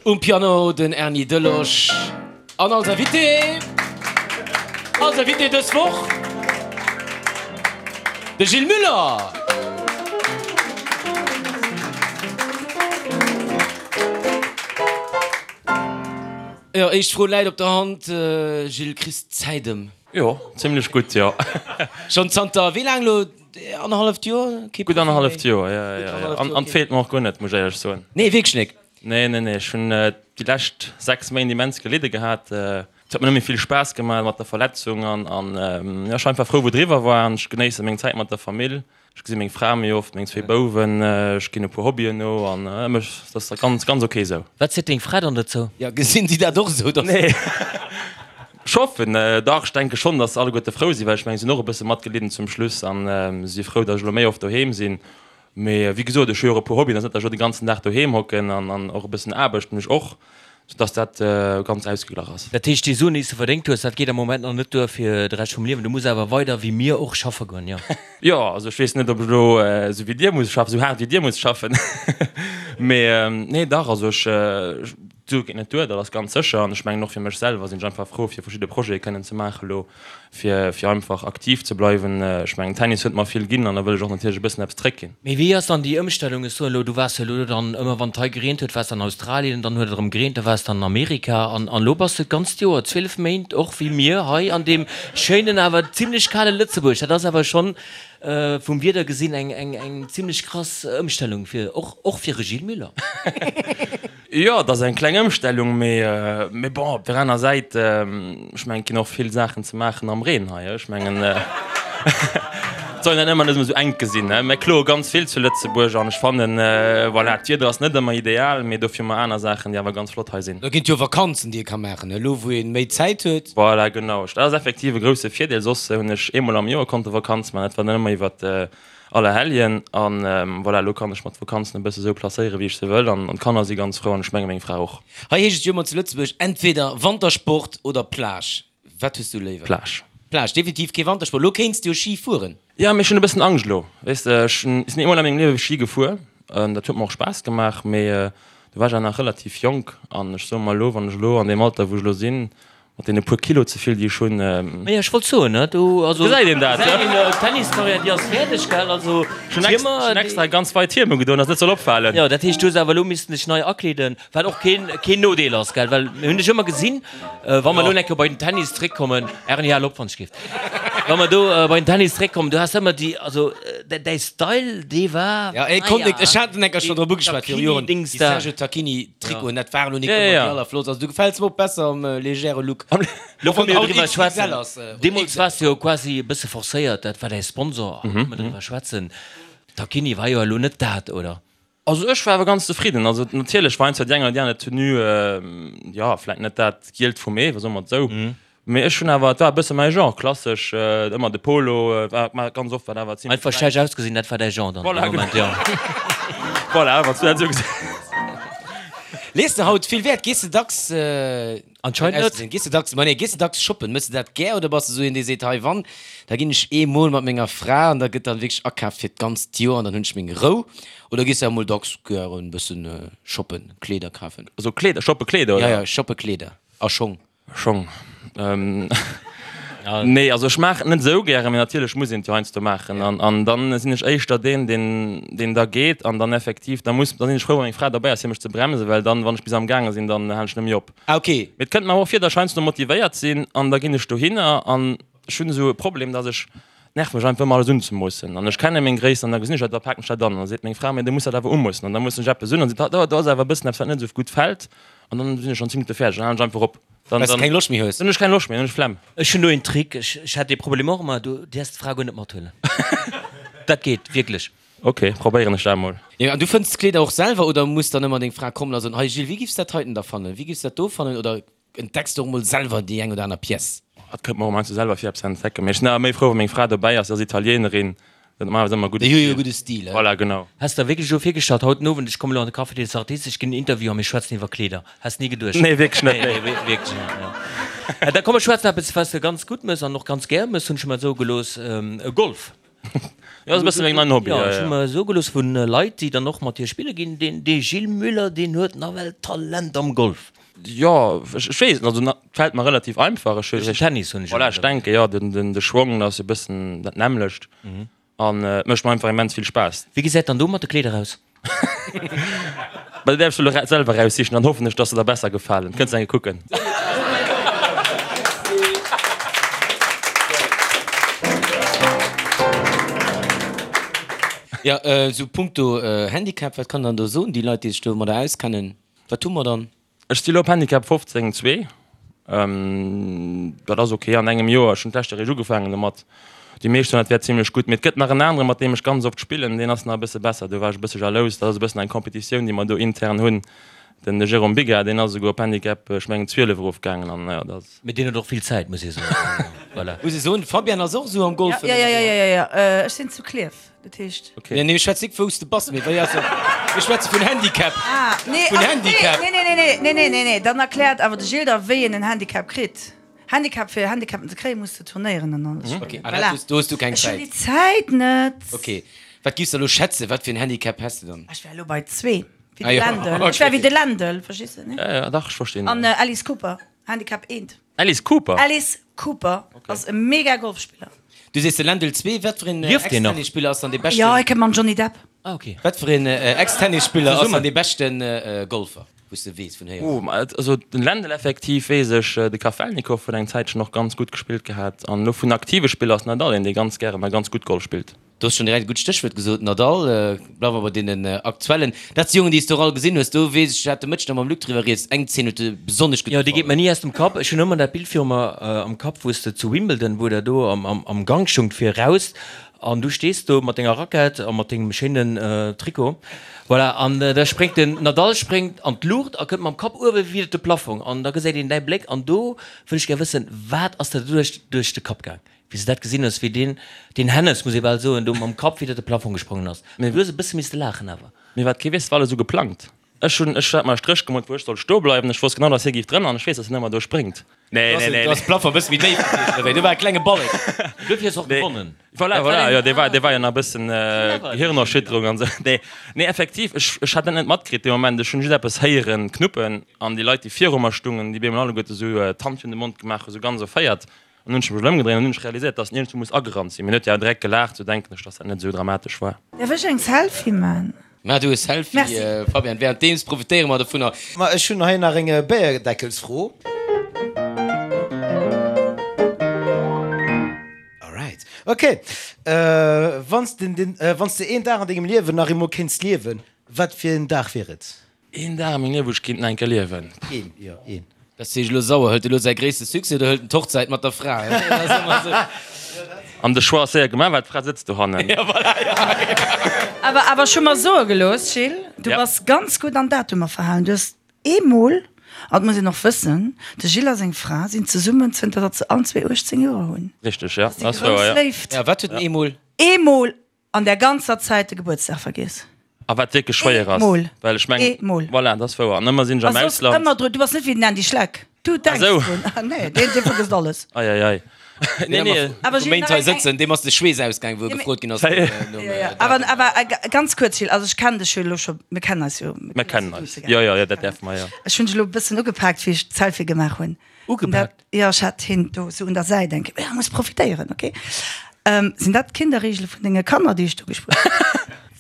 Um Piano den Erny Delosch an als Invité, als Invité dës Woch de Gilles Muller. Jo, éischt Fro läit op der Hand, Gilles, kriss d'Zäit ëm? Jo, zimlech gutt, jo. Schonn zanter wéi laang elo? Annerhalleft Joer? Gutt annerhalleft Joer, jo, jo, jo. An et feelt mer och guer net, muss ech éierlech soen. Nee, wierklech net? Nee, nee, nee. Ech hunn déi lescht 6 Méint immens gelidde gehat. Et huet mer net méi vill Spaass gemaach mat der Verletzung an, an jo, ech war einfach frou, wou et eriwwer war an ech genéisse meng Zäit mat der Famill. Ech gesi meng Fra méi oft, meng zwee Bouwen, ech ginn e puer Hobbyen no an mech, dat ass ganz, ganz ok esou. Wat seet deng Fra dann dozou? Jo, gesinn si dat och esou, dass. Nee, ech hoffen dach. Ech denke schonn, dass se alleguerte frou sinn, well ech mengen, si hunn och e bësse matgelidden zum Schluss an si si frou, dass ech elo méi oft doheem sinn. Mee wéi gesot, ech hu jo och e puer Hobbyen, et ass net, datt ech elo de ganzen Dag doheem hocken an an och e bëssen Aarbecht hunn ech och, soudass dat ganz ausgeglach ass. Dat heescht, déi Suen, déi s de verdéngt hues, dat geet am Moment nach net duer fir de Rescht vum Liewen. Du muss awer weider wéi mir och schaffe goen, jo? Jo, also ech weess net, ob ech elo esou wéi dir muss schaffen, esou haart wéi dir muss schaffen. Mee nee, dach, also ech, d'Sue geet net duer, dat ass ganz sécher. An ech mengen och fir mech selwer sinn ech einfach frou, fir verschidde Projete kënnen ze maache elo. Fir fir einfach aktiv ze bleiwen. Ech mengen Tennis huet mer vill ginn an da wëll ech och natierlech e bëssen eppes zréckginn. Mee wéi ass dann déi Ëmstellung? Ech soen elo, du waars jo elo dann ëmmer wann et hei gereent huet, waars de an Australien, dann huet et erëm gereent, da waars de an Amerika an an elo bass de d'ganzt Joer, 12 Méint, och wéi mir hei an deem schéinen awer zimlech kale Lëtzebuerg. Dat ass awer schonn vum Wieder gesinn eng eng eng zimlech krass Ëmstellung fir och och fir e Gilles Muller. Jo, et ass eng kleng Ëmstellung, mee bon, op der aner Säit, ech mengen, et ginn och vill Saachen ze maachen am Reen hei. Ech mengen, et soll een dat ëmmer net ëmmer esou enk gesinn. Mir kloe ganz vill zu Lëtzebuerg an ech fannen, voilà, d'Wieder ass net ëmmer ideal, mee dofir hu mer aner Saachen, déi awer ganz flott hei sinn. Da ginn et jo Vakanzen, déi ee ka maachen, elo wou ee méi Zäit huet. Voilà, genau. Dat ass effektiv e grousse Virdeel. Soss hunn ech eemol am Joer konnte Vakanz maachen, dat war dann ëmmer iwwer Allerhelljen an voilà, elo kann ech mer d'Vakanzen e bësse sou placéieren, wéi ech se wëll an d'Kanner si ganz frou an ech menge meng Fra och. Hei heescht et jo ëmmer zu Lëtzebuerg, entweder Wantersport oder Plage. Wat hues du léiwer? Plage. Plage, definitiv kee Wantersport. Elo kéints de jo Ski fueren. Jo, mee ech hunn e bëssen Angscht elo. Weess de, ech sinn eemol a mengem Liewe Ski gefuer, dat huet mer och Spaass gemaach, mee do war ech awer nach relativ jonk an ech soe mer elo, wann ech elo an deem Alter wou ech elo sinn, Mat deene puer Kilo ze vill, déi ech hunn. Maja, ech wollt soen, ne, do, also. Gesäit een dat, ne? D'Tenniscarrière, déi ass fäerdeg, gell? Also, Ech hunn extra, ech hunn extra ganz weit Hiem ugedoen, dass et net soll opfalen. Jo, dat heescht, du hues awer elo missten dech nei akleeden, wat och keen, keen Nodeel ass, gell? Well mir hunn dech ëmmer gesinn, wa mer elo eng Kéier bei den Tennis zréckkommen, Erni, hal op, wann ech géif. Wa mer do bei den Tennis zréckkommen, du has ëmmer déi, also däi Style, dee war, Ja, ech konnt nik, ech hat en eng Kéier schonn drop ugeschwat viru Joren, déi Sergio Tacchini Trikoten, dat war elo nik ëmmer déi allerflottst. Also du gefäls mer och besser am legere Look. Lo wa mir driwwer schwätzen, deemools waars de jo quasi e bësse forcéiert, dat war däi Sponsor, a wa mer driwwer schwätzen, Tacchini war jo elo net dat, oder? Also ech war awer ganz zefridden. Also natierlech war heiansdo déi eng oder déi aner Tenue, jo, vläit net dat Gielt vum Ee, soe mer et esou. Mee ech hunn awer, et war e bësse mäi Genre, klassesch, ëmmer de Polo, war war ganz oft war awer zimlech. Einfach schlecht ausgesinn, dat war däi Genre dann dee Moment, jo. Voilà, wann s du dat esou gesäis. Lees de haut vill Wäert? Gees de dacks Anscheinend net. Gees de dacks, ma nee, gees de dacks shoppen? Méchs de dat gär oder bass de esou een, dee seet, hei wann, da ginn ech eemol mat menger Fra an da gëtt dann wierklech akaaft fir d'ganzt Joer an dann hunn ech meng Rou? Oder gees de emol dacks gären e bëssen shoppen, Kleeder kafen? Also Kleeder, shoppe Kleeder, oder? Ja, ja, shoppe Kleeder a Schong. Schong. Nee, also ech maachen et net esou gären, mee natierlech muss een et jo heiansdo maachen. An, an dann sinn ech éischter deen, deen, deen da geet an dann effektiv, da muss, da sinn ech frou, wa meng Fra derbäi ass, fir mech ze bremsen, well dann, wann ech bis amgaange sinn, dann halen ech net méi op. Ah, okay. Mee et kënnt mer awer och vir, datt ech heiansdo motivéiert sinn an da ginn ech dohinner an ech hunn esou e Problem, datt ech, nervt mech einfach ëmmer alles unzemoossen an ech kenne meng Gréisst an da gesinn ech dat, da paken ech dat an an da seet meng Fra, mee du muss dat awer umoossen an da moossen ech eppes un an seet, do, do ass awer e bëssen eppes, wat net esou gutt fält. An dann sinn ech schon 10 Minutte fäerdeg, dann halen ech einfach op. Dann, Well s de keng Loscht méi hues. Dann hunn ech keng Loscht méi, dann hunn ech Flemm. Ech hunn do een Trick, ech, ech hat dee Problem och ëmmer, du däerfs d'Fra guer net mathuelen. Dat geet wierklech. Ok, probéieren ech dat mol. Jo, an du fënns d'Kleeder och selwer oder muss dann ëmmer deng Fra kommen a soen, hei Gilles, wéi giffs dat heiten da fannen, wéi giffs dat do fannen oder entdecks du och mol selwer déi eng oder aner Pièce? Et kënnt mer och heiansdo selwer vir eppes ze entdecken, mee ech sinn awer méi frou wa meng Fra dobäi ass, si ass Italienerin, Dat normalerweis ëmmer gudde Déi hu jo gudde Stil, he? Voilà, genau. Häss der wierklech elo virgestallt, haut den Owend, ech kommen elo an de Café des Artistes, ech ginn en Interview a mir schwätzen iwwer Kleeder? Häss ni geduecht? Nee, wierklech net, nee. Nee, wierklech net, jo. Da komm, mer schwätzen eppes, wat s de ganz gutt mëss an och ganz gär mëss, hunn ech mer soe gelooss, Golf. Jo, ass e bësse meng neien Hobby. Jo, ech hu mer soe gelooss vu Leit, déi dann och mat dir spille ginn, deen dee Gilles Muller, deen huet nawell Talent am Golf. Jo, ech weess net, also et fält mer relativ einfach. Ech Duerch den Tennis hunn ech Voilà, ech denke jo, den de Schwong ass e bëssen dat nämmlecht an et mécht mer einfach immens vill Spaass. Wéi gesäit dann do mat de Kleeder aus? Mä dat däerfs du elo selwer eraussichen, dann hoffen ech, dass se der besser gefalen. Kënns eng Kéier kucken. Jo, esou punkto Handicap, wat kann dann do soen, déi Leit, déi sech domadder auskennen? Wat hu mer dann? Ech si lo op Handicap 15, zwee. Dat ass ok an engem Joer. Ech hunn d'lescht Joer eréischt ugefaangen domat. Déi meescht soen, dat wär zimlech gutt. Mee et gëtt nach en aneren, mat deem ech ganz oft spillen, deen ass nach e bësse besser. Do war ech e bësse jalous. Dat ass e bëssen eng Competitioun, déi mer do intern hunn. Den Jérôme Biga, deen ass esouguer op Handicap, ech mengen, 12 erofgaangen. An jo, dat ass. Mee deen huet och vill Zäit, muss ee soen. Voilà. Muss ee soen, de Fabian ass och esou am Golfen. Jo, jo, jo, jo, jo, ech sinn zu Klierf. Dat heescht. Okay. Nee, nee, ech schwätz nik wous de bass, mee wéi ass et? Mir schwätze vun Handicap. Ah, nee, Vun also, Handicap. Nee, nee, nee, nee, nee, nee, nee, nee, dann erkläert awer de Gilles der, wéi een en Handicap kritt. Handicap, fir Handicapen ze kréien, muss de turnéieren an alles spillen. Okay, ah, Voilà. dat hues, do hues du keng Ech hunn Zäit. déi Zäit net. Okay, wat giffs de elo schätzen, wat fir en Handicap häss de dann? Ech wär elo bei zwee, wéi Ah de jo, Lendl. Ech wär okay. wéi de Lendl, verstees de, ne? Ja, ja, dach, ech verstinn. An Alice Cooper, Handicap eent. Alice Cooper? Alice Cooper ass e mega Golfspiller. Du sees de Lendl 2, wat fir een Lieft deen nach? Ex-Tennisspiller ass dann dee beschten? Jo, hie kënnt mam Johnny Depp. Ah ok. Wat fir een Ex-Tennisspiller ass dann Zesummen. dee beschten Golfer, wou s de weess vun héieren? Oh, ma et, also den Lendl effektiv weess ech, de Kafelnikow huet eng Zäitchen och ganz gutt gespillt gehat an elo vun aktive Spiller ass Nadal een, dee ganz gären a ganz gutt Golf spillt. Du hues schonn direkt e gutt Stéchwuert gesot, Nadal. Bleiwe mer bei deenen aktuellen. Dat si Jongen, déi s de och all gesinn hues. Do weess ech, ech hat de Mëtteg nach mam Luc driwwer rieds, eng Zeen huet dir besonnesch gutt Jo, déi geet gefall. mer ni aus dem Kapp. Ech hunn ëmmer dat Bild viru mer am Kapp, wou s de zu Wimbledon, wou der do am Gank stungt fir eraus an du stees do mat denger Rackett a mat dengem schéinen Trikot, voilà, an da spréngt den Nadal spréngt an d'Luucht a kënnt mam Kapp uewe widder de Plafong an da gesäit een däi Bléck an do wëll ech gär wëssen, wat ass der doduerch duerch de Kapp gaang? Wéi s de dat gesinn hues, wéi deen, deen Hennes, muss ee bal soen, do mam Kapp widder de Plafong gesprongen ass. Mee du hues e bësse misste laachen awer. Mee wat kee weess, war alles esou geplangt. Ech hunn, ech hat mer e Stréch gemoolt, wou ech sollt stoe bleiwen. Ech wosst genau, dass hie géif drënner an ech weess, dass hien ëmmer do spréngt. Nee, nee, nee. Do ass de Plafong e bësse méi déif gewiescht, oder wéi? Do war e klenge Ballek. Duerfir hues de och gewonnen. Voilà, voilà, jo, dee war, dee war jo nach e bëssen Gehirnerschütterung an esou. Nee, nee, effektiv, ech, ech hat dat net matkritt dee Moment. Ech hunn just eppes héieren knuppen an déi Leit, déi viru mer stungen, déi bemol alleguerte esou d'Hand virun de Mond gemaach hu, sou ganz erféiert. An hunn ech mech ëmgedréint an hunn ech realiséiert, dass en iergendwou muss agerannt sinn. Mee en huet jo awer direkt gelaacht, sou denken ech, dass dat net esou dramatesch war. Därf ech eng Selfie man? Maach du e Selfie, Merci. Fabian. Währenddeems profitéiere mer dovunner. Ma ech hunn hei nach eng Béierdeckelsfro. Alright. Ok. Wann s de den, wann s de een Dag an dengem Liewen nach eemol kéints liewen, wat fir en Dag wier et? Een Dag a mengem Liewen, wou ech kéint nach eng Kéier liewen. Een, jo, een. Dat ass elo sauer. Hëlt e lo säi gréisste Succès oder hëlt en d'Hochzäit mat der Fra? Dat ass ëmmer esou. An de Choix ass séier gemaach, well d'Fra sëtzt dohannen. Ja, voilà, ja. Awer, awer ech hu mer soe gelooss, Gilles, du Ja. bass ganz gutt an Datumer verhalen. Du hues eemol, an dat muss een och wëssen, de Gilles a seng Fra sinn zesummen zënter datt se allen zwee 18 Joer hunn. Richteg, ja. Dat ass déi grouss Léift. Ja, wat huet en eemol? Eemol An der ganzer Zäit de Gebuertsdag vergiess. A wat wierklech schwéier ass. Eemol. Well ech mengen, Eemol. voilà, dat ass wouer. An ëmmer sinn ech am A soss Ausland. ëmmer dru, du bass net wéi den Andy Schleck. Du denks Ah, sou. drun. Ah, nee, deen, dee vergësst alles. Ei, ei, ei. Nee, nee. Awer Vu Gilles, Méint nach hei eng, eng. sëtzen, deem ass de Schweess ausgaang, wou e Ja, mee. gefrot ginn ass nom Ja, ja. Datum. Awer, awer ganz kuerz, Gilles, also ech kennen dech jo elo scho, mir kennen eis jo. Mir kennen eis. Jo, jo, jo, dat däerfe mer, jo. Ech hunn dech elo e bëssen ugepaakt, wéi ech d'Selfie gemaach hunn. Ugepaakt? Jo, ech hat hien do sou un der Säit eng Kéier. Ja, muss profitéieren, ok. Sinn dat d'Kinderriegele vun denge Kanner, déi ech do gespuert hunn?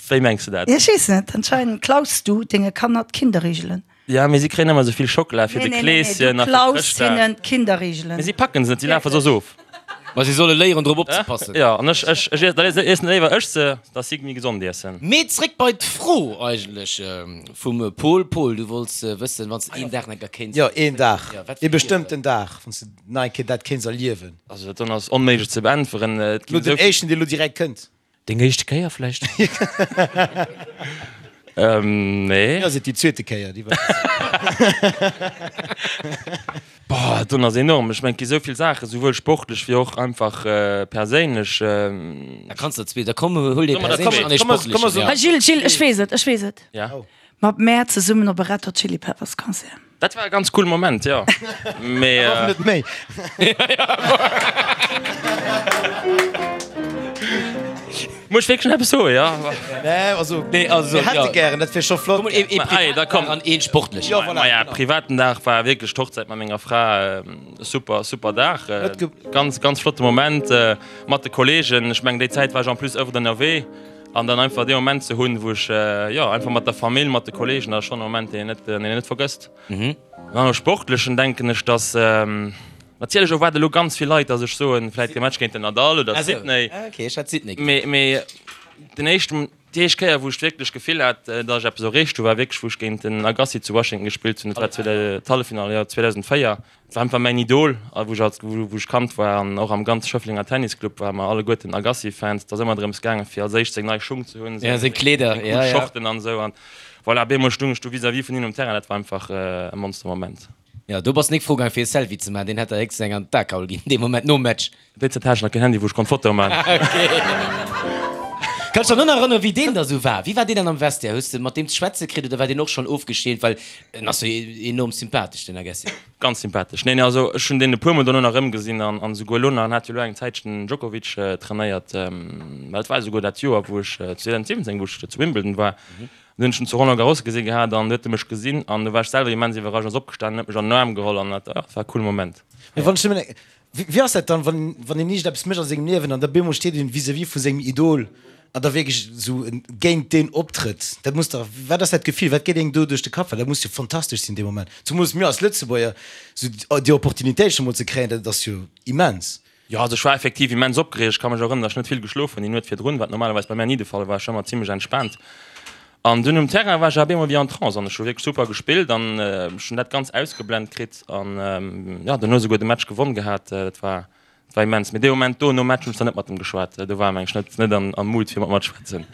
Wéi mengs de dat? Ech weess net, anscheinend klaus du denge Kanner d'Kinderriegelen. Ja, mee si kréien ëmmer esou vill Schockela fir de Kleeschen a a fir Nee, nee, nee, du klaus Chrëschtdag. hinnen d'Kinderriegelen. Mee si packen se net, si lafe soss of. Ma si solle léieren drop opzepassen. Jo, an ech, ech, ech, da iessen léiwer ech se, dass si méi gesond iessen. Mee zréck bei d'Fro eigentlech vum Pol. Pol, du wollts wëssen, wann s de een Dag nach kéints. Jo, een Dag, Jo, wat ee wier et? bestëmmten Dag, wann s de nach eng Kéier dat kéints erliewen. Also dat ass onméiglech ze beäntweren. Et Lo ginn den esou vill. éischten, dee lo direkt kënnt. Deng éischte Kéier vläicht? Ähm, nee. Mir ass et déi zweete Kéier, déi war. Boah, dat ass enorm. Ech mengen, et gi sou vill Saachen, souwuel sportlech wéi och einfach perséinlech. Da kanns der zwee, da komm, huel dee Solle mer der perséinlechen an dee Komm, komm, sportlechen. komm, Ja. Ah, Gilles, Gilles, ech weess et, ech weess et. Ja. Mat mär zesummen op e Red Hot Chili Peppers Concert. Dat war e ganz coole Moment, jo. Mee. Och net méi. Muss ech wierklech nach eppes soen, jo? Nee, also, Nee, also, mir hätte ja. gären, dat wier scho flott. Komm, ee, ee Ma, ei, da privaten komm. Dag an een sportlechen. Jo, voilà, Maja, genau. privaten Dag war wierklech d'Hochzäit mat menger Fra. Super, super Dag. Net ge- Ganz, ganz flotte Moment mat de Kollegen. Ech mengen, déi Zäit war ech en plus öfter ënnerwee. An dann einfach dee Moment ze hunn, wou ech, jo, einfach mat der Famill, mat de Kollegen, dat ass schonn e Moment, deen een net, deen een net vergësst. An am Sportlechen denken ech, dass, natierlech erwaarde elo ganz vill Leit, dass ech soen, vläit de Match géint den Nadal oder Sydney. Ah, okay, ech hat Sydney geduecht. Mee, mee den éischten, déi éischt Kéier, wou ech wierklech d'Gefill hat, dass ech eppes erreecht hu, war wierklech, wou ech géint den Agassi zu Washington gespillt hunn. Dat war d'Halleffinall, jo, 2004. Et war einfach mäin Idol, a wou ech als, wou ech Kand war an och am ganze Schëfflenger Tennisclub ware mer alleguerten Agassi-Fans. Et ass ëmmer drëms gaangen, fir als éischt seng nei Schung ze hunn, Ja, seng Kleeder, seng cool ja, ja. Shorten an esou. An voilà, op eemol stung ech do vis-à-vis vun him um Terrain, dat war einfach e Monstermoment. Ja, do bass nik fro gaang fir e Selfie ze maachen, deen hätt der héchstens eng an d'Akaul ginn dee Moment nom Match. Déi Zäit hat ech nach keen Handy, wou ech konnt Fotoe man. Kanns dech nach erënneren, wéi deen da sou war? Wéi war deen dann am Vestiaire? Hues de mat deem ze schwätze kritt oder war deen och schonn ofgeschämt? Well en ass jo enorm sympathesch, den Agassi. Ganz sympathesch. Neen, also ech hunn deen e puer Mol dono nach erëmgesinn an an esouguer elo nach. En hat jo elo eng Zäitchen den Djokovic trainéiert. Well et war esouguer dat Joer, wou ech 2017, wou ech zu Wimbledon war. Dunn hunn ech en zu Roland Garros gesi gehat an du huet e mech gesinn an du war ech selwer immens iwwerrascht, ass opgestanen, huet mech an den Aarm geholl an dat, dat war e coole Moment. Mee wann ech nëmmen Wéi ass dat dann, wann wann een iergend eppes mécht a sengem Liewen an da bemol steet een vis-à-vis vu sengem Idol an da wierklech esou géint deen optrëtt? Dat muss dach, wat ass dat Gefill, wat geet engem do duerch de Kapp? Well dat muss jo fantastesch sinn dee Moment, zumools mir als Lëtzebuerger, esou déi Opportunitéit scho mol ze kréien, dat ass jo immens. Jo, also ech war effektiv immens opgereegt. Ech ka mech erënneren, datt ech net vill geschlof hunn déi Nuet virdrun, wat normalerweis bei mär ni de Fall war. Ech war ëmmer zimmlech entspaant. An dunn um Terrain war ech awer op eemol wéi en Trance an ech hu wierklech super gespillt an ech hunn dat ganz ausgeblent kritt an jo, duerno esouguer de Match gewonn gehat. Dat war, dat war immens. Mee dee Moment do nom Match hunn ech dann net mat em geschwat. Do war en mengen ech net, net an am Mood fir mat mer ze schwätzen.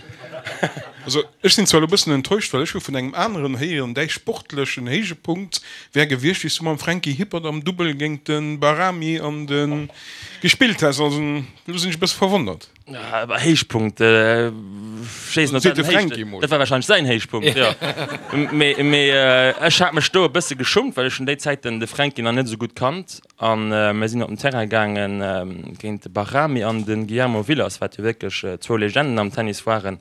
Also ech sinn zwar elo bëssen enttäuscht, well ech hu vun engem aneren héieren, däi sportlechen Héijepunkt wär gewiescht, wéi s du mam Franky Hippert am Dubbel géint de Bahrami an de gespillt häss. Also elo sinn ech e bësse verwonnert. Héichpunkt, ech weess net, dat war wahrscheinlech säin Héichpunkt, jo. Mee, mee ech hat mech do e bësse geschummt, well ech hunn déi Zäiten de Fränki nach net esou gutt kannt. An mir sinn op den Terrain gaange géint de Bahrami an de Guillermo Vilas, wat jo wierklech zwou Legenden am Tennis waren.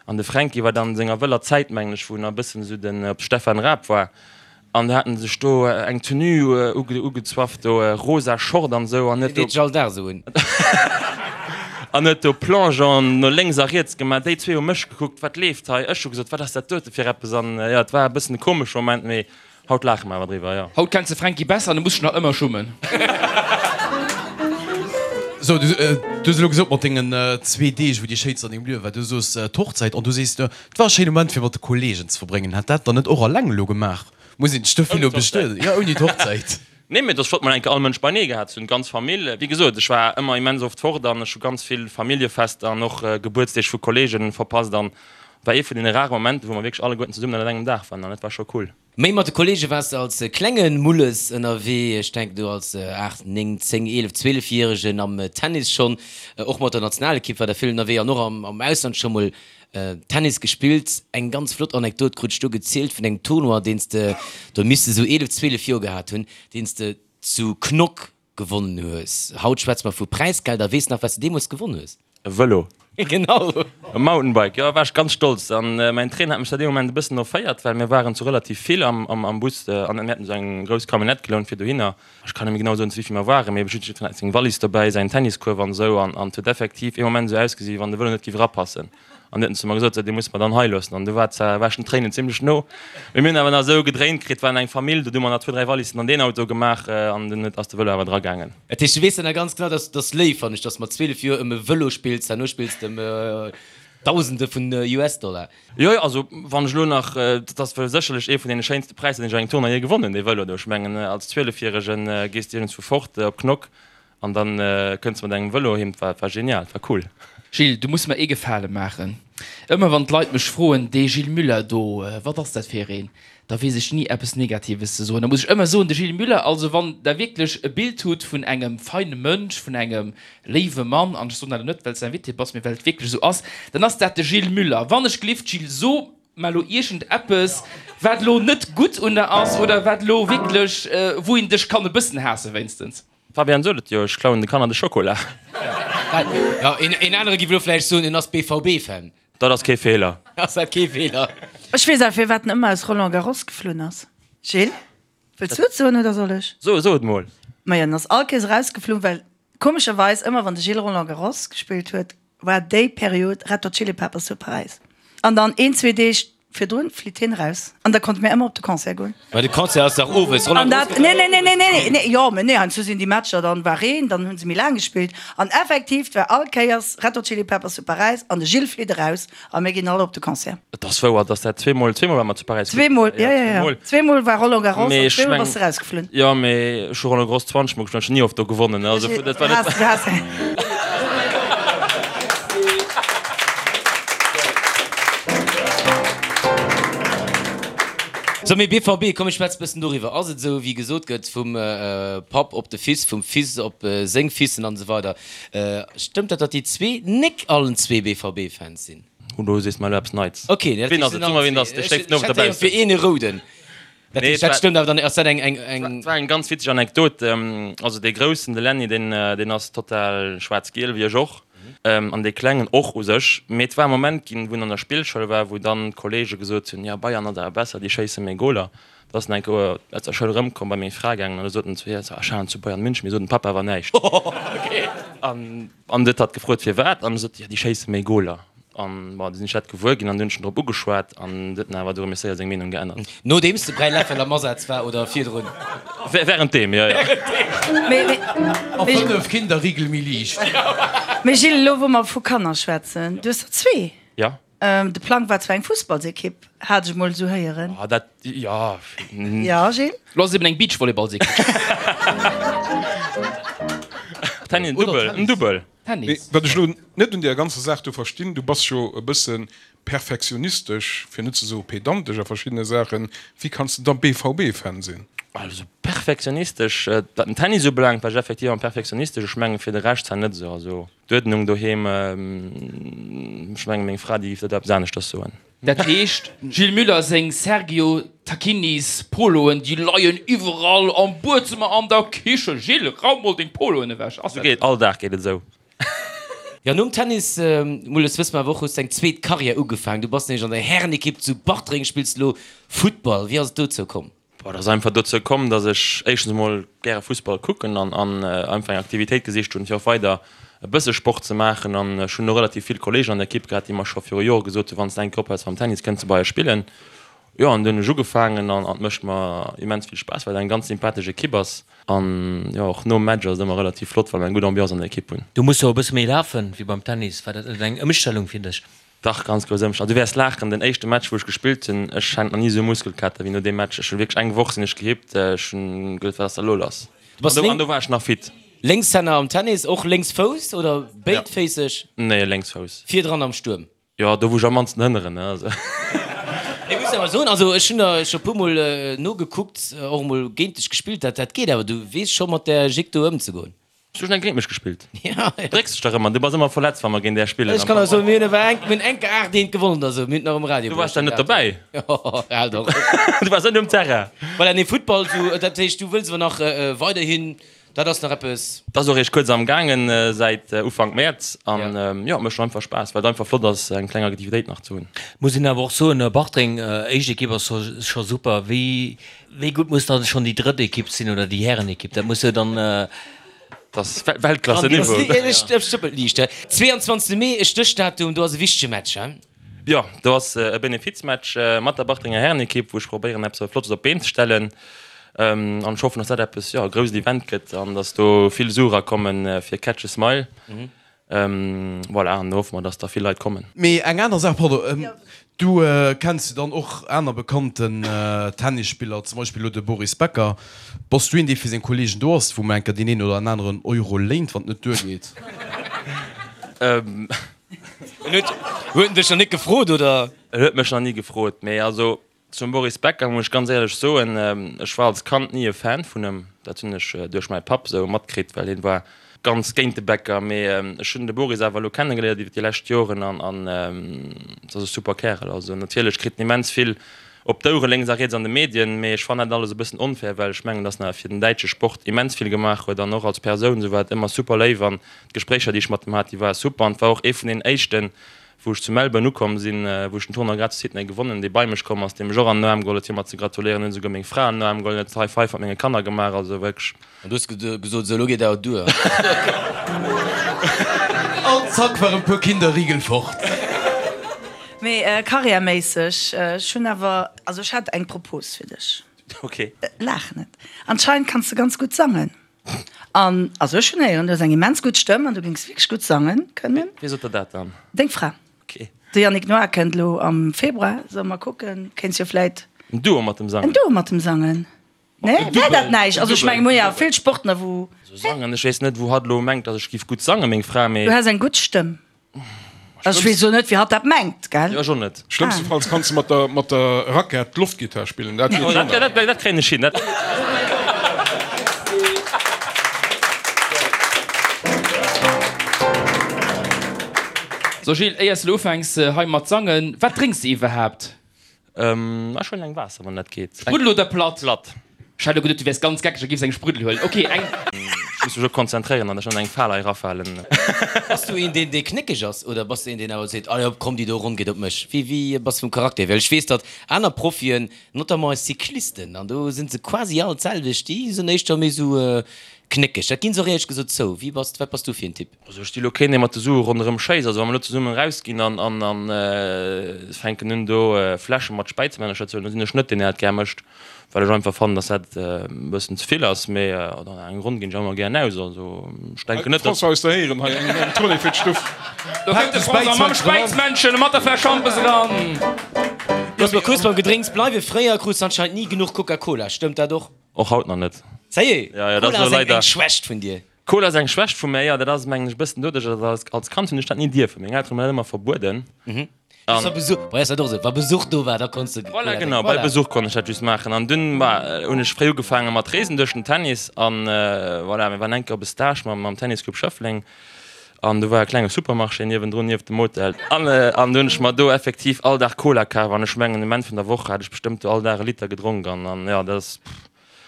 An de Fränki war dann an senger wëller Zäit, mengen ech, wou en nach e bëssen esou den op Stefan Raab war. An do haten se sech do eng Tenue ugezwafft, do rosa Short an esou, an huet do. Déi deet sech all Dag esou un. An huet do Plongeon no lénks a riets gemaach. Déi zwee hu mech gekuckt, wat leeft hei? Ech hu gesot, wat ass dat dote fir eppes? An jo, et war e bëssen e komesche Moment, mee haut laache mer awer driwwer, jo. Haut kenns de Fränki besser an du muss dech nach ëmmer schummen. Sou, du hues elo gesot mat dengen zwee Deeg, wou déi schéinst an dengem Liewe war, du soos d'Hochzäit an du sees, Et war e schéine Moment fir mat de Kollegen ze verbréngen. Hätt dat dann net och alleng elo gemaach? Muss een sech dofir elo bestueden? Jo, ouni d'Hochzäit. Nee, mee et ass flott mol eng Kéier all Mënsch beinee gehat ze hunn, d'ganz Famill. Wéi gesot, ech war ëmmer immens oft fort an ech hu ganz vill Familljefester an och Gebuertsdeeg vu Kollegen verpasst an et war ee vun deene rare Momenten, wou mer wierklech alleguerten zesummen ënnert engem Daach waren an dat war scho cool. Méi mat de Kollege waars de als klenge Mulles ënnerwee, ech denken do als 8, 9, 10, 11, 12 Järegen am Tennis schonn, och mat der Nationalekipp war der vill ënnerwee an och am Ausland scho mol Tennis gespillt. Eng ganz flott Anekdot krut ech do gezielt vun engem Tournoi, deen s de, do misst de sou 11, 12 Joer gehat hunn, deen s de zu Knock gewonnen hues. Haut schwätze mer vu Präisgelder. Weess nach, wat s de deemools gewonn hues? E Vëlo. Genau. E Mountainbike, jo, war ech ganz stolz. An mäin Trainer hat mech da dee Moment e bëssen erféiert, well mir waren zu relativ vill am Bus an mir haten esou eng grouss Camionnette gelount fir dohinner. Ech kann net méi genau soen, zu wéi vill mer waren, mee jiddwereen hat seng Wallis dobäi, säin Tenniskuerf an esou. An et huet effektiv ee Moment esou ausgesi wéi wann de Vëlo net géif erapassen. An du huet en zu mer gesot, sou, dee muss mer dann hei loossen. An du war zwar, war ech den Tréinen zimlech no, mee mir hunn awer nach esou gedréint kritt, waren eng Famill, do hu mer nach zwou, dräi Wallissen an deen Auto gemaach an dunn huet, ass de Vëlo awer dragaangen. Dat heescht, du weess dann nach ganz genau, dass dass léif, fannen ech, dass mat 12 Joer ëm e Vëlo spills, herno spills de ëm Dausende vun US-Dollar. Jo, jo, also wann ech elo nach, dat ass wuel sécherlech ee vun deene schéinste Präisser, deen ech an engem Tournoi jee gewonnen hunn, dee Vëlo do. Ech mengen, als Zwielefjäregen gees de iergendswou fort op Knock An dann kënns de mat engem Vëlo heem, dat war genial, dat war cool. Gilles, du muss mer ee Gefale maachen. Ëmmer wann d'Leit mech froen, dee Gilles Müller do, wat ass dat fir een? Da weess ech ni eppes Negatives ze soen. Da muss ech ëmmer soen, de Gilles Müller, also wann Der wierklech e Bild hutt vun engem feine Mënsch, vun engem léiwe Mann, an ech soen dat elo net, well s de Invité bass, mee well et wierklech esou ass, dann ass dat de Gilles Müller. Wann ech gelift, Gilles, so mer elo iergend eppes, wat elo net gutt un der ass oder wat elo wierklech, wou een dech kann e bëssen haasse wéinstens. Fabian sot et jo, ech klauen de Kanner de Schokola. Jo, een anere giff elo vläicht soen, en ass BVB-Fan. Dat ass kee Feeler. Ass dat kee Feeler? Ech weess awer firwat en ëmmer aus Roland Garros geflunn ass. Gilles, wëlls du et soen oder soll ech? So, so et mol. Majo, en ass all Kéiers erausgeflunn, well komescherweis ëmmer wann de Gilles Roland Garros gespillt huet, war déi Period Red Hot Chili Peppers zu Paräis. An dann een, zwee Deeg virdrun flitt hien eraus an da konnte mir ëmmer op de Concert goen. Mä de Concert ass dach owes, Roland Garros gëtt nee, nee, nee, nee, nee, nee, jo, mä nee, heiansdo sinn déi Matcher, dann war Reen, dann hu se méi laang gespillt an effektiv, 't war all Kéiers Red Hot Chili Peppers zu Paräis an de Gilles flitt eraus a mir ginn all op de Concert. Et ass wouer, dass dat zweemol, zweemol war mer zu Paräis. Zweemol, jo, jo, jo, zweemol war Roland Garros an zweemol bass de erausgeflunn. Jo, mee ech hu Roland Garros 20 mol gespillt an ech hunn ni oft do gewonnen, also dat war net. So, mee BVB, komm ech schwätz bëssen doriwwer. Ass et esou wéi gesot gëtt, vum Papp op de Fils, vum Fils op seng Fissen an esou weider, stëmmt dat, datt déi zwee nek allen zwee BVB-Fans sinn? Oh, do sees de mer elo eppes Neits. Ok, dat Ween ass et? Soe mer, ween et ass, dee schléift den Owend Ech hätt dobaussen. fir een e rouden. Dat Nee, heescht, dat et war- stëmmt awer dann, ass dat eng, eng, eng. Et war eng ganz witzeg Anekdot. Also dee Groussen, de Lenny, deen, deen ass total schwaarz-giel, wéi ech och. An dee Klengen och u sech. Mee et war e Moment ginn, wou en an der Spillschoul war, wou dann d'Kolleege gesot hunn, jo, Bayern ass awer besser, déi schéisse méi Goler. Da ass en eng Kéier aus der Schoul erëmkomm, bei meng Fra gaangen an da sot en zu hir, so, ech halen zu Bayern München. Mee sot dem Papa awer näischt. An An du huet hatt gefrot firwat, an e sot, jo déi schéisse méi Goler. An bon, du sinn ech dat gewuer ginn an du hunn ech en drop ugeschwat an du huet en awer du erëm séier seng Meenung geännert. Nodeems de Bräiläffel am Asaz war oder virdrun? Währenddeem, jo, jo. A 5 Kinder Rigel méi liicht. Mee Gilles, elo wou mer vu Kanner schwätzen, du hues der zwee. Jo. De Plang war zwar eng Fussballsekipp, hat ech mol esou héieren. Ah, dat, jo. Jo, Gilles? Lo ass et eben eng Beachvolleyballsekipp. Tennis, en Dubbel, en Dubbel. Tennis. Wat ech elo net un deer ganzer Saach do verstinn, du bass jo e bësse perfektionistesch, fir net ze soe pedantesch a verschiddene Saachen, wéi kanns de da BVB-Fan sinn? Also perfektionistesch, wat den Tennis ubelaangt, war ech effektiv am perfektionistesch. Ech mengen, fir de Rescht zwar net esou. Also. D'Uerdnung doheem, ech mengen meng Fra déi géif dat eppes aneschters soen. Dat heescht, Gilles Müller seng Sergio Tacchinis Poloen, déi leien iwwerall am Buedzëmmer, an der Kichen. Gilles, raum mol deng Poloen ewech. Ass Sou dat geet, all Dag geet et esou. Jo, nom Tennis, Mulles, wësse mer awer och, hues de eng zweet Karriär ugefaangen. Du bass nämlech an der Härenekipp zu Bartreng, spills elo Futtball. Wéi ass et dozou komm? Boah, et ass einfach dozou komm, dass ech éischtens emol gäre Fussball kucken an an einfach eng Aktivitéit gesicht hunn, fir och weider e bësse Sport ze maachen. An ech hunn och relativ vill Kolleegen an der Ekipp gehat, déi mer scho viru Jore gesot hunn, Wann s de eng Kéier ophäls mam Tennis, kënns de bei eis spillen. Jo, an du hunn ech ugefaangen an et mécht mer immens vill Spaass, well et eng ganz sympathesch Ekipp ass. An jo, och nom Match ass et ëmmer relativ flott, well mer eng gutt Ambiance an der Ekipp hunn. Du muss jo e bësse méi lafen wéi beim Tennis. War dat net eng Ëmstellung fir dech? Dach, ganz grouss Ëmstellung. Du wäers laachen, den éischte Match wou ech gespillt hunn, ech hat nach ni esou Muskelkater wéi no deem Match. Ech hunn wierklech eng Woch sinn ech gehippt, ech hunn geduet, wat ass da elo lass? Du bass An do war ech nach fit. Lénkshänner am Tennis, och Lénksfouss oder béidféisseg? Nee, Lénksfouss. Virdran am Stuerm? Jo, do wou ech am mannsten hënneren, ne, also. Ech muss awer soen, also ech hunn der scho puer mol nogekuckt, och emol géint dech gespillt, dat dat geet awer, du weess scho mat där Jick do ëmzegoen. Du hues eng géint mech gespillt. Ja, ja. Drécks dech dach ëmmer, du bass ëmmer verletzt wa mer géint är spillen. Ech kann der soen, mir hunn awer eng, mir hunn enke 8 eent gewonnen oder sou, mir hunn et nach um Radio Du waars da net dobäi. Jo, hal dach op. Du waars net um Terrain. Voilà, nee, Futtball, sou, dat heescht, du wëlls awer nach weiderhin, dat ass nach eppes. Dat ass och eréischt kuerz am gaangen, säit Ufank Mäerz an jo, et mécht och einfach Spaass, well et einfach flott ass eng kleng Aktivitéit nach ze hunn. Muss een awer och soen, Bartreng, éischt Ekipp ass scho super. Wéi Wéi gutt muss dann schonn déi drëtt Ekipp sinn oder déi Härenekipp? Dat muss jo dann. Dat ass Weltklasse-Niveau. Ech stëppel liicht. 22 Mee, e Stéchdatum, do ass e wichtege Match, he? Jo, do ass e Benefizmatch mat der Bartrenger Härenekipp, wou ech probéieren eppes Flottes op d'Been ze stellen. An ech hoffen, dass dat eppes, jo, e grousst Event gëtt an dass do vill Sue erakommen fir Catch a Smile. Voilà, an do hoffe mer, dass da vill Leit kommen. Mee eng aner Saach, pardon, du kenns jo dann och aner bekannten Tennisspiller, zum Beispill elo de Boris Becker. Bass du een, dee fir seng Kollegen do ass, wou mol eng Kéier deen een oder en aneren Euro léint, wann et net duergeet? En huet, huet en dech nach net gefrot, oder? En huet mech nach ni gefrot, mee also Zum Boris Becker muss ech ganz éierlech soen, ech war als Kand ni e Fan vun em. Dat hunn ech duerch mäi Papp esou matkritt, well hien war ganz géint de Becker. Mee ech hunn de Boris awer elo kennegeléiert iwwer déi lescht Joren an an et ass e super Kärel. Also natierlech kritt en immens vill. Op d'Ouere lénks a riets an de Medien, mee ech fannen dat alles e bëssen onfair, well ech mengen, dass en awer fir den däitsche Sport immens vill gemaach huet an och als Persoun esou war et ëmmer super léif an d'Gespréicher, déi ech mat em hat, déi ware super an et war och ee vun den éischten, wou ech zu Melbourne ukomm sinn, wou ech den Tournoi grad zu Sydney gewonnen, dee bei mech komm ass, dee mech och an den Aarm geholl huet fir mer ze gratuléieren, hunn esouguer meng Fra an den Aarm geholl, huet High Five mat menge Kanner gemaach, also wierklech. An du hues gesot, Sou, elo geet awer duer. An zack waren puer Kinderriegel fort. Mee karriärméisseg, ech hunn awer, also ech hätt eng Propos fir dech. Ok. Laach net. Anscheinend kanns de ganz gutt sangen. An, also ech hunn héieren, du hues eng immens gutt Stëmm an du géings wierklech gutt sangen kënnen. Wie sot der dat dann? Deng Fra. Ok. De Yannick Noah kënnt elo am Februar, solle mer kucken, kéints jo vläit. En Duo mat dem Sangen. En Duo mat dem Sangen. Nee, wär dat näischt? Also ech mengen, mir hu jo vill Sportler wou. Also sangen, ech weess net wou hatt elo mengt, datt ech giff gutt sangen, meng Fra, mee. Du häss eng gutt Stëmm. Also ech weess elo net wéi hatt dat mengt, gell? Jo, ech och net. Schlëmmstefalls kanns de mat der mat der Rackett d'Loftgittar spillen, dat geet schonn. Dat dat kréien ech hin, dat. So Gilles, éiers de elo ufänks hei mat sangen, wat drénks de iwwerhaapt? Ech huelen eng Waasser, wann dat geet. Spruddel oder platt? Platt. Ech hat elo geduet, du wäers ganz geckeg a giffs eng Spruddel huelen. Ok, eng. Ech muss mech och konzentréieren an ech net an eng Fal hei erafalen. Bass du een, deen, dee knéckeg ass oder bass du een, deen awer seet, Allez hop, komm, déi do Ronn geet op mech? Wéi, wéi bass du vum Charakter hier? Well ech weess, datt aner Profien, notamment eis Cyclisten, an do si se quasi all d'selwecht, déi sinn éischter méi esou knéckeg. Dat ginn se och éierlech gesot zou. Wéi bass, wat bass du fir en Typ? Also ech si lo keen dee mat de Sue ronderëm schéisst. Also wa mer lo zesummen erausginn an an an fänken un do Fläsche mat Späizemännercher ze huelen, da sinn ech net deen deen dat gär mécht, well ech einfach fannen, dass dat e bëssen ze vill ass. Mee an eng Ronn ginn ech ëmmer gären aus. Also ech denken net, dass. François aus der Héieren hei eng Tournée fir d'Stuff. Do kënnt de François mam Späizmännchen a mat der Fläsch Schampes eran. Looss mer kuerz beim Gedrénks bleiwen. Fréier krus de anscheinend ni genuch Coca-Cola, stëmmt dat och? Och haut nach net. Sérieux? Ja, ja, dat Cola ass ass elo eng leider. Schwächt vun dir? Cola ass eng Schwächt vu mär, jo. Dat ass, mengen ech, e bëssen doduerch, dass als, als Kand hunn ech dat ni dierfen. Meng Elteren hunn mer dat ëmmer verbueden. An. Wa Besuch, bei eis war et och esou, wa Besuch do war, da konns de Voilà, Cola genau, drénken. bei Voilà. Besuch konnt ech dat just maachen. An dunn, bah, hunn ech fréi ugefaange mat reesen duerch den Tennis. An voilà, mir waren eng Kéier op e Stage mam, mam Tennisclub Schëffleng. An do war e klenge Supermarché niewendrun, nieft dem Hotel. An, an do hunn ech mer do effektiv all Dag Cola kaf. An ech mengen, um Enn vun der Woch hat ech bestëmmt do all Dag e Liter gedronk. An, an jo, dat ass, pff.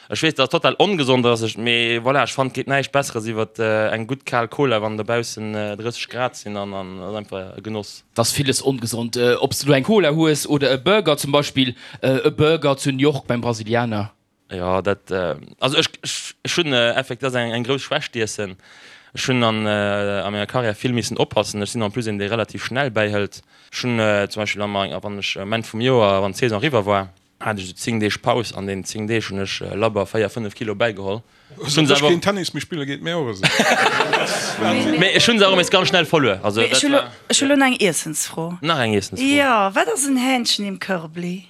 Ech weess, dass et total ongesond ass, ech, mee voilà, ech fannen, et geet näischt Besseres iwwert eng gutt kal Cola, wann dobaussen 30 Grad sinn an an ass einfach e Genoss. Et ass villes ongesond, ob s de lo eng Cola hues oder e Burger, zum Beispill e Burger zu New York beim Brasilianer. Jo, dat, also ech, ech hunn effektiv, dat ass eng grouss Schwächt, d'Iessen. Ech hunn an a menger Karriär vill missen oppassen. Ech sinn en plus een, dee relativ schnell bäihëlt. Ech hunn zum Beispill am, wann ech um Enn vum Joer, wann d'Saison eriwwer war, Hat ech esou 10 Deeg Paus, an den 10 Deeg hunn ech labber 4, 5 Kilo bäigeholl. Ech hunn keen Tennis méi spille geet mir och esou. Mee ech hunn se och nees ganz schnell verluer. Also Mee ech dat hu lo, war. ech hu lo nach eng Iessensfro. Nach eng Iessensfro? Jo, wat ass en Hähnchen im Körbli?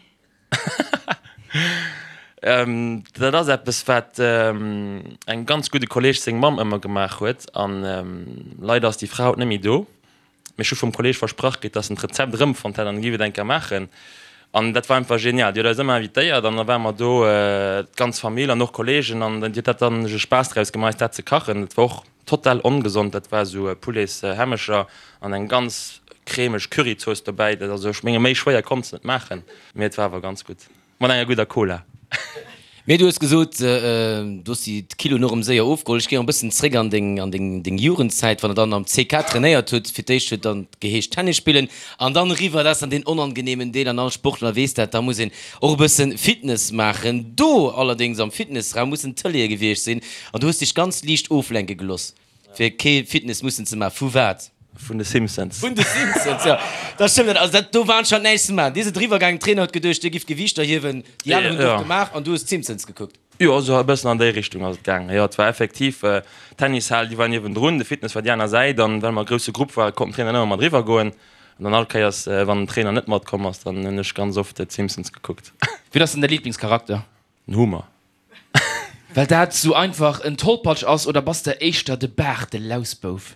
Dat ass eppes wat engem ganz gudde Kolleeg seng Mamm ëmmer gemaach huet an leider ass déi Fra haut net méi do. Mee ech hu vum Kolleeg versprach kritt, dass en d'Rezept erëmfonnt hätt an e giff et eng Kéier maachen. An dat war einfach genial. Déi huet eis ëmmer invitéiert an da ware mer do, d'ganz Famill an och Kolleegen an déi huet dat dann sech e Spaass draus gemaach, eis dat ze kachen. Dat war och total ongesond. Dat war esou Poulets-Hämmecher an eng ganz cremeg Curryzooss dobäi. Dat, also ech menge méi schwéier konns de net maachen, mee et war awer ganz gutt. Mat enger gudder Cola. Mee du hues gesot, du hues déi Kiloen och erëm séier ofgeholl. Ech géing e bëssen zréck an deng, an deng, deng Jugendzäit, wann der dann am CK trainéiert hutt. Fir d'éischt huet dann geheescht Tennis spillen an dann eriwwer, dat ass dann deen onangeneemen Deel an all Sportler weess dat, da muss een och e bëssen Fitness maachen. Do allerdéngs am Fitnessraum mussen Tëleeë gewiescht sinn an du hues dech ganz liicht oflenke geloss. Fir kee Fitness mussen ze maachen. Vu wat? Vun de Simpsons. Vun de Simpsons, jo. Dat stëmmt net. Also dat, do war anscheinend näischt ze maachen. Dir sidd eriwwer gaangen, den Trainer huet geduecht, dir gifft Gewiichter hiewen, déi aner hunn et och gemaach an du hues d'Simpsons gekuckt. Jo, esou e bëssen an déi Richtung ass et gaangen. Jo, et war effektiv, d'Tennishal, déi war niewendrun, de Fitness war déi aner Säit an well mer e grousse Grupp waren, konnt den Trainer net ëmmer mat eriwwer goen. An dann all Kéiers, wann den Trainer net matkomm ass, dann hunn ech ganz oft d'Simpsons gekuckt. Wien ass denn däi Liblingscharakter? Den Homer. Well dat sou einfach en Tollpatsch ass, oder bass de éischter de Baart, de Lausbouf?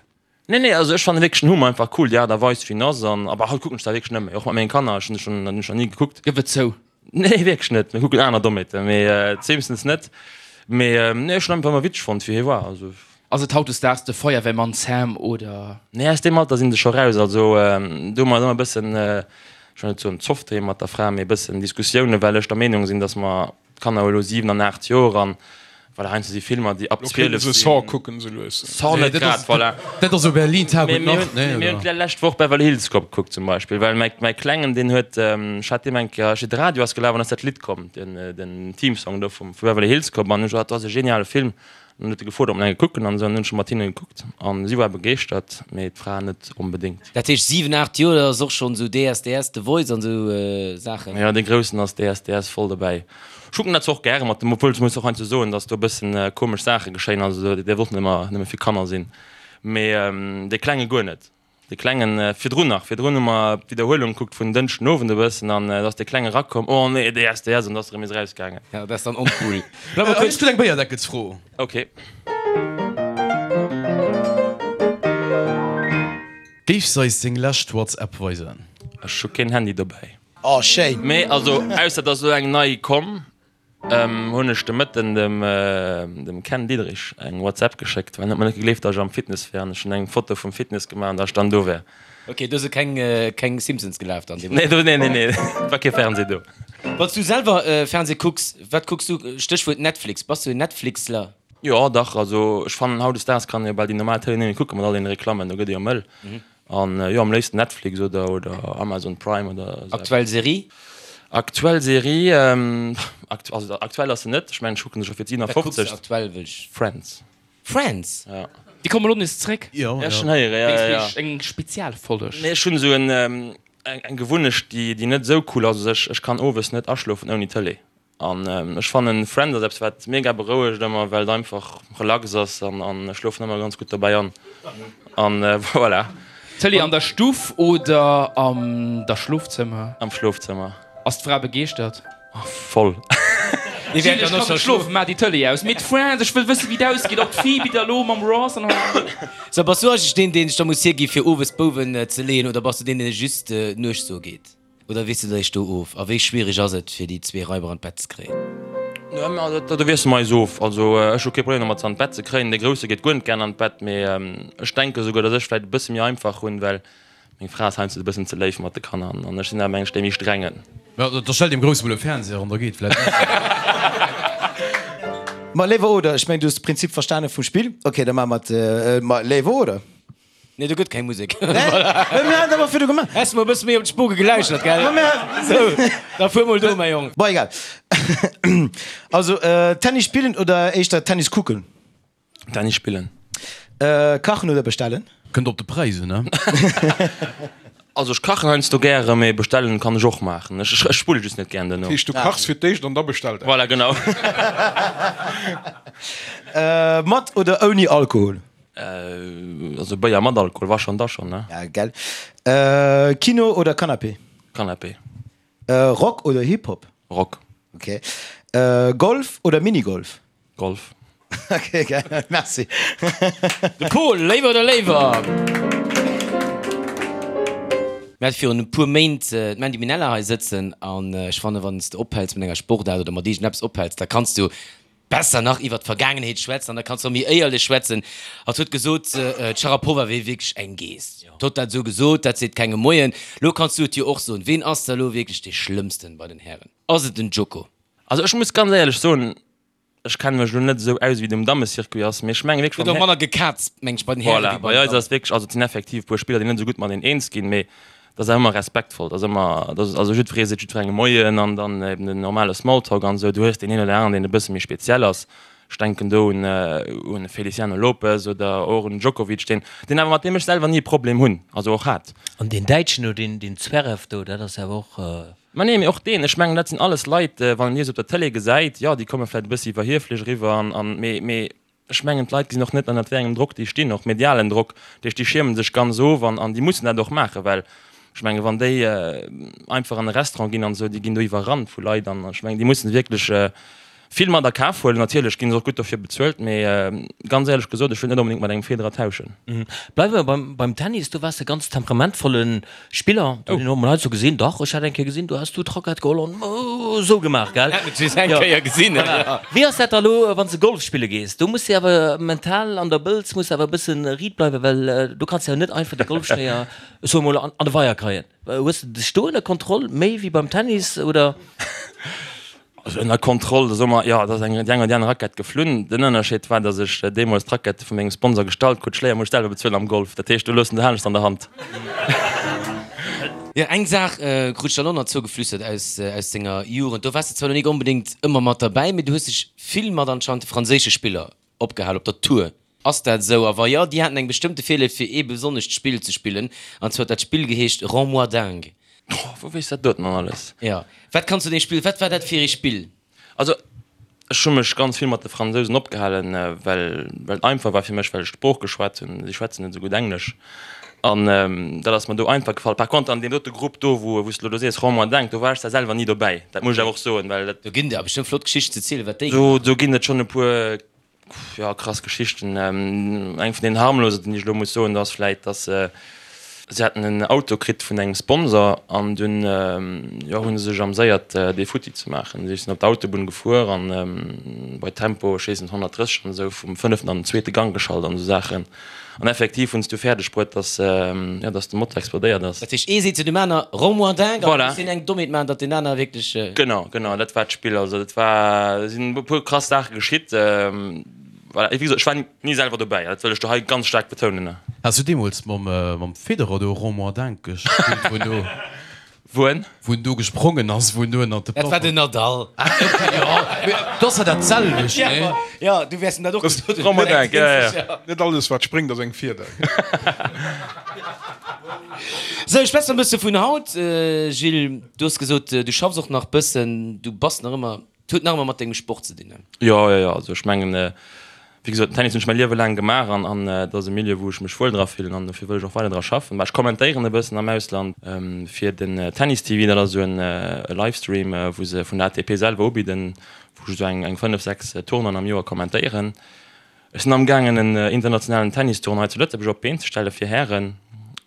Nee, nee, also ech fannen wierklech den Homer einfach cool, déi Aart a Weis wéi en ass an, aber haut kucken ech dat wierklech net méi, och mat mengen Kanner, ech hunn schon, dat hunn ech nach ni gekuckt. Gëff et zou. Nee, wierklech net, mir kucken aner Dommheeten, mee d'Simpsons net, mee nee, ech hunn einfach ëmmer witzeg fonnt wéi hie war, also. Ass et hautdesdaags de Feuerwehrmann Sam oder? Nee, aus deem Alter sinn se scho raus, also do hu mer et ëmmer e bëssen. Ech wëll net soen Zoff doheem mat der Fra, mee e bëssen Diskussiounen, well ech der Meenung sinn, datt mer, d'Kanner hu elo 7 an 8 Joer an voilà, heiansdo si Filmer, déi ab Lo kéinte 12 se sinn. Saw kucken esou lues. Saw net grad, voilà. Dat ass jo Berlin Tag Mee und mir Nacht, hunn, nee, mir hunn oder? d'lescht Woch Beverly Hills Cop gekuckt zum Beispill, well mäi, mäi Klengen, deen huet, ech hat deem eng Kéier, ech, de Radio ass gelaf an ass dat Lidd komm, den, den Theme Song do vum, vu Beverly Hills Cop an ech gesot, dat ass e geniale Film. An dann huet e gefrot, ob mer eng kucken an esou, an dann hunn ech mat hinne gekuckt an si war begeeschtert, mee d'Fra net onbedéngt. Dat heescht 7, 8 Joer, dat ass och schonn esou DSDS, The Voice an esou Saachen? Jo, dee Groussen ass DSDS voll dobäi. Ech kucken dat zwar och gäre mat em, obwuel ech muss och heiansdo soen, datt do e bëssen komesch Saache geschéien, also dat däerf och net ëmmer nëmme fir Kanner sinn, mee dee Klenge guer net. De Klengen, virdrun nach, virdrun hu mer d'Widderhuelung gekuckt vun Dënschden Owend e bëssen an da ass de Klenge erakomm, oh nee, DSDS, an da ass erëm nees erausgaangen. Ja, dat ass dann oncool. Ech hunn eng Béierdeckelsfro. Ok. Géifs eis deng lescht WhatsApp weisen? Ech hu keen Handy dobäi. Oh schéin. Mee also, ausser et ass elo eng nei komm. Hunn ech de Mëtten dem Ken Diederich eng WhatsApp geschéckt, well en huet mer net gegleeft, datt ech am Fitness wär an ech hunn eng Foto vum Fitness gemaach an datt ech dann do wär. Ok, do si keng keng Simpsons gelaf dann deemools? Nee, do, nee, nee, nee, et war kee Fernseh do. Wann s du selwer Fernseh kucks, wat kucks du? Stéchwuert Netflix, bass du en Netflixler? Jo, dach, also ech fannen hautdesdaags kann ee jo bal déi normal Tëlee net méi kucken mat all deene Reklammen, do gëtt ee jo mëll. An jo, am léifsten Netflix oder oder Amazon Prime oder esou eppes. Aktuell Serie? Aktuell Serie, also aktuell ass se net, ech mengen ech kucken se scho fir Wat kucks de d'57. aktuell, wëll ech. Friends. Friends? Ja. Déi komme lo nees zréck. Jo, Ja, jo. schon héieren, ja, ja, ja. Eng Spezialfolleg. Nee, ech hunn esou en eng Gewunnecht, déi déi net esou cool ass. Also ech ech kann owes net aschlofen ouni Tëlee. An ech fannen Friends ass eppes wat mega berouegt ëmmer, well et einfach relax ass an an ech schlofen ëmmer ganz gutt dobäi an an voilà. Tëlee an der Stuff oder am der Schlofzëmmer? Am Schlofzëmmer. Ass d'Fra begeeschtert? Voll. Gilles, ech kann net schlofen, maach déi Tëlee aus. Mee d'Friends, ech wëll wëssen wéi et ausgeet, ob d'Phoebe da lo mam Ross an. So, bass du eigentlech deen deen sech da muss hiergi fir owes d'Bouwen ze leeën oder bass du deen deen just nuechts do geet? Oder wiesst de dech do of? A wéi schwiereg ass et, fir déi zwee Raiber an d'Bett ze kréien? Do wiesse mer eis of. Also ech hu kee Problem domat, se an d'Bett ze kréien. De Grousse geet guer net gären an d'Bett, mee ech denke souguer, datt ech vläicht e bësse méi einfach hunn, well meng Fra ass heiansdo e bëssen ze léif mat de Kanner an ech sinn awer mengen ech dee méi strengen. Da stell deem Grousse mol e Fernseher an, da geet vläicht besser. Ma léiwer oder? Ech mengen, du hues de Prinzip verstane vum Spill. Ok, da maache mer et. Ma léiwer oder? Nee, do gëtt keng Musek. Mir hat awer virdu gemaach. Häss mol e bësse méi op d'Spuge geläuschert, gell? Sou, da fuer mol do, mäi Jong. Bon, egal. Also, Tennis spillen oder éischter Tennis kucken? Tennis spillen. Kachen oder bestellen? Kënnt op de Präis un, ne? Also ech kachen heiansdo gäre, mee bestellen kann ech och maachen. Ech ech spulle just net gären duerno. Dat heescht, du kachs fir d'éischt an da bestellt Voilà, genau. Mat oder ouni Alkohol? Also Béier mat Alkohol, wa schon, da schon, ne? Ja, gell. Kino oder Canapé? Canapé. Rock oder Hip-Hop? Rock. Ok. Golf oder Minigolf? Golf. Ok, gell. Merci. De Pol, léiwer oder léiwer? Mir hate virun e puer Méint d'Mandy Minella hei sëtzen an ech fannen, wann s de ophäls mat enger Sportaart oder mat iergendeppes ophäls, da kanns du besser nach iwwert d'Vergaangenheet schwätzen an da kanns de och méi éierlech schwätzen. Hatt huet gesot, d'Sharapova wier wierklech eng Geess. Hatt huet dat esou gesot, dat seet kengem Moien. Lo kanns du et jo och soen. Ween ass da lo wierklech dee Schlëmmsten bei den Hären? Ass et den Djoko? Also ech muss ganz éierlech soen, ech kenne mech elo net esou aus wéi et um Dammecircuit ass, mee ech menge wierklech Gëtt beim och manner gekazt, meng ech, bei den Hären Voilà, wéi bei bei den eis Dammen. ass wierklech, also et sinn effektiv e puer Spiller, déi net esou gutt mateneen eens ginn, mee dat ass awer ëmmer respektvoll, dat ass ëmmer, dat ass also jiddweree seet jiddwerengem Moien an dann eben den normale Smalltalk an esou. Du hues deen een oder aneren, deen e bësse méi speziell ass. Ech denken do un un Feliciano Lopez oder och un Djokovic, deen deen awer mat deem ech selwer ni e Problem hunn, also och hat. An deen Däitschen do, deen deen Zverev do, dat ass awer och. Ma nee, mee och deen, ech mengen dat sinn alles Leit, wann een déi esou op der Tëlee gesäit, jo déi komme vläicht e bëssi iwwerhieflech eriwwer an an mee mee Ech mengen, d'Leit gesinn och net, ënnert wéi engem Drock déi stinn, och medialen Drock. Dat heescht, déi schierme sech ganz of an an déi mussen dat och maachen, well ech mengen, wann déi einfach an e Restaurant ginn an esou, déi ginn do iwwerrannt vu Leit an ech mengen, déi mussen wierklech. Vill mat a Kaf huelen. Natierlech ginn se och gutt dofir bezuelt, mee ganz éierlech gesot, ech wëll net onbedéngt mat engem Federer tauschen. Bleiwe mer beim, beim Tennis. Du waars e ganz temperamentvolle Spiller. Du hunn mol hei sou gesinn, dach, ech hat eng Kéier gesinn, du has du d'Rackett geholl an esou gemaach, gell? Hat et just eng Kéier gesinn, ja. Wéi ass dat da elo, wann s de Golf spille gees? Do muss de awer mental an der Bëlz muss awer e bësse riit bleiwen, well do kanns de jo net einfach de Golfschléier, ech soe mol, an de Weier kreien. Hues de dech do ënner Kontroll, méi wéi beim Tennis, oder? Also ënner Kontroll, da soe mer, jo, et ass eng, déi eng oder déi aner Rackett geflunn. Den Ënnerscheed war, datt ech deemools d'Rackette vu mengem Sponsor gestallt krut. D'Schléier muss ech selwer bezuelen am Golf. Dat heescht, do loossen se anescht an der Hand. Jo, eng Saach krut ech dann och nach zougeflüstert aus, aus denger Jugend. Do waars de zwar lo nik onbedéngt ëmmer mat derbäi, mee du hues dech vill mat anscheinend de franséische Spiller opgehal op der Tour. Ass dat esou? A wa jo, déi haten eng bestëmmte Virléift fir ee besonnescht Spill ze spillen, an zwar huet dat Spill geheescht Rends-moi dingue. Oh, wou weess dat doten dann alles? Jo, wat kanns du deem Spill, wat war dat fir ee Spill? Also, ech hu mech ganz vill mat de Fransousen opgehalen, well well et einfach war fir mech, well ech d'Sprooch geschwat hunn. Si schwätzen net esou gutt Englesch an dat ass mer do einfach gefall. Par contre an deem dote Grupp do, wou wou s de elo do sees, Rends-moi dingue, do war ech zwar selwer ni dobäi, dat muss ech awer och soen, well dat. Do ginn der bestëmmt flott Geschichten ze zielen, wat déi gemaach hunn. Do ginn et schonn e puer Jo, krass Geschichten. Eng vun den harmlosen, déi ech elo muss soen, ass vläit, dass si haten en Auto kritt vun engem Sponsor an dunn, jo, hu se sech amséiert, dee futti ze maachen. Si sinn op d'Autobunn gefuer an bei Tempo, ech weess net, 130 an esou, vum fënneften an den zweete Gang geschalt an esou Saachen. An effektiv hunn se du fäerdeg bruet, dass, jo, dass de Motor explodéiert ass. Dat heescht, ee seet zu dem aner, Rends-moi dingue, an da muss deen eng Dommheet maachen, datt deen aner wierklech. Genau, genau, dat war d'Spill. Also dat war, et sinn e puer krass Saache geschitt. Voilà, wéi gesot, ech war ni selwer dobäi, dat wëll ech do hei ganz staark betounen. Has du deemools mam Federer do Rends-moi dingue gespillt, wou en do. Wou en? Wou en do gesprongen ass, wou en do ënnert de Dat war den Nadal. Ah, okay, jo. Mee dat ass jo dat selwecht, nee? Jo, du wäers em dat och gesot hunn. Romain, ja, ja. Net alles wat spréngt ass eng Fieder. Sou, schwätz mer e bësse vun haut, Gilles. Du hues gesot, du schaffs och nach bëssen, du bass nach ëmmer Et huet nach ëmmer mat dengem Sport ze dinn, ne? Jo, jo, jo. Also ech mengen, wéi gesot, den Tennis hunn ech mäi Liewe laang gemaach an an et ass e Milieu, wou ech mech wuel dra fillen an dofir wëll ech och weider dra schaffen. Mä ech kommentéieren e bëssen am Ausland fir den Tennis TV, dat ass esou en Livestream, wou se vun der ATP selwer ubidden, wou ech esou eng eng 5, 6 Tournoien am Joer kommentéieren. Ech sinn amgaangen en internationalen Tennistournoi zu Lëtzebuerg op d'Been ze stelle fir Hären,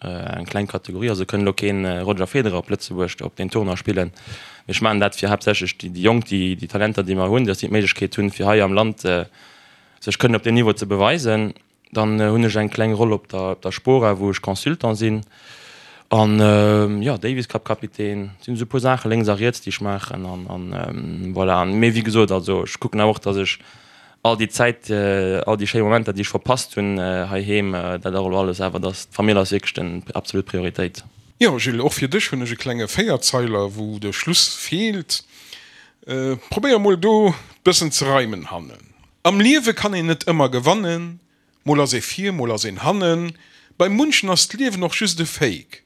eng kleng Kategorie, also kënn elo keen Roger Federer op Lëtzebuerg op deen Tournoi spillen, mee ech maachen dat fir haaptsächlech déi Jonk, déi Talenter déi mer hunn, dass déi d'Méiglechkeet hunn fir hei am Land sech kënnen op deem Niveau ze beweisen. Dann hunn ech eng kleng Roll op der Spora, wou ech Consultant sinn an jo Davis Cup Kapitän. Et sinn esou e puer Saache lénks a riets déi ech maachen an voilà. Mee wéi gesot, also ech kucken awer och, dass ech All déi Zäit, all déi schéi Momenter, déi ech verpasst hunn heiheem, dat och elo alles, awer dass d'Famill ass wierklech den absolut Prioritéit. Jo Gilles, och fir dech hunn ech e klenge Véierzeiler, wou de Schluss feelt. Probéier mol do bëssen ze reimen hannen. Am Liewe kann een net ëmmer gewannen, mol ass ee vir, mol ass een hannen. Bei munchen ass d'Liewen och just e Fake.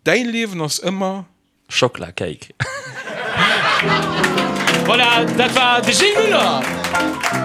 Däi Liewen ass ëmmer. Schockla Cake. Voilà, dat war de Gilles Muller.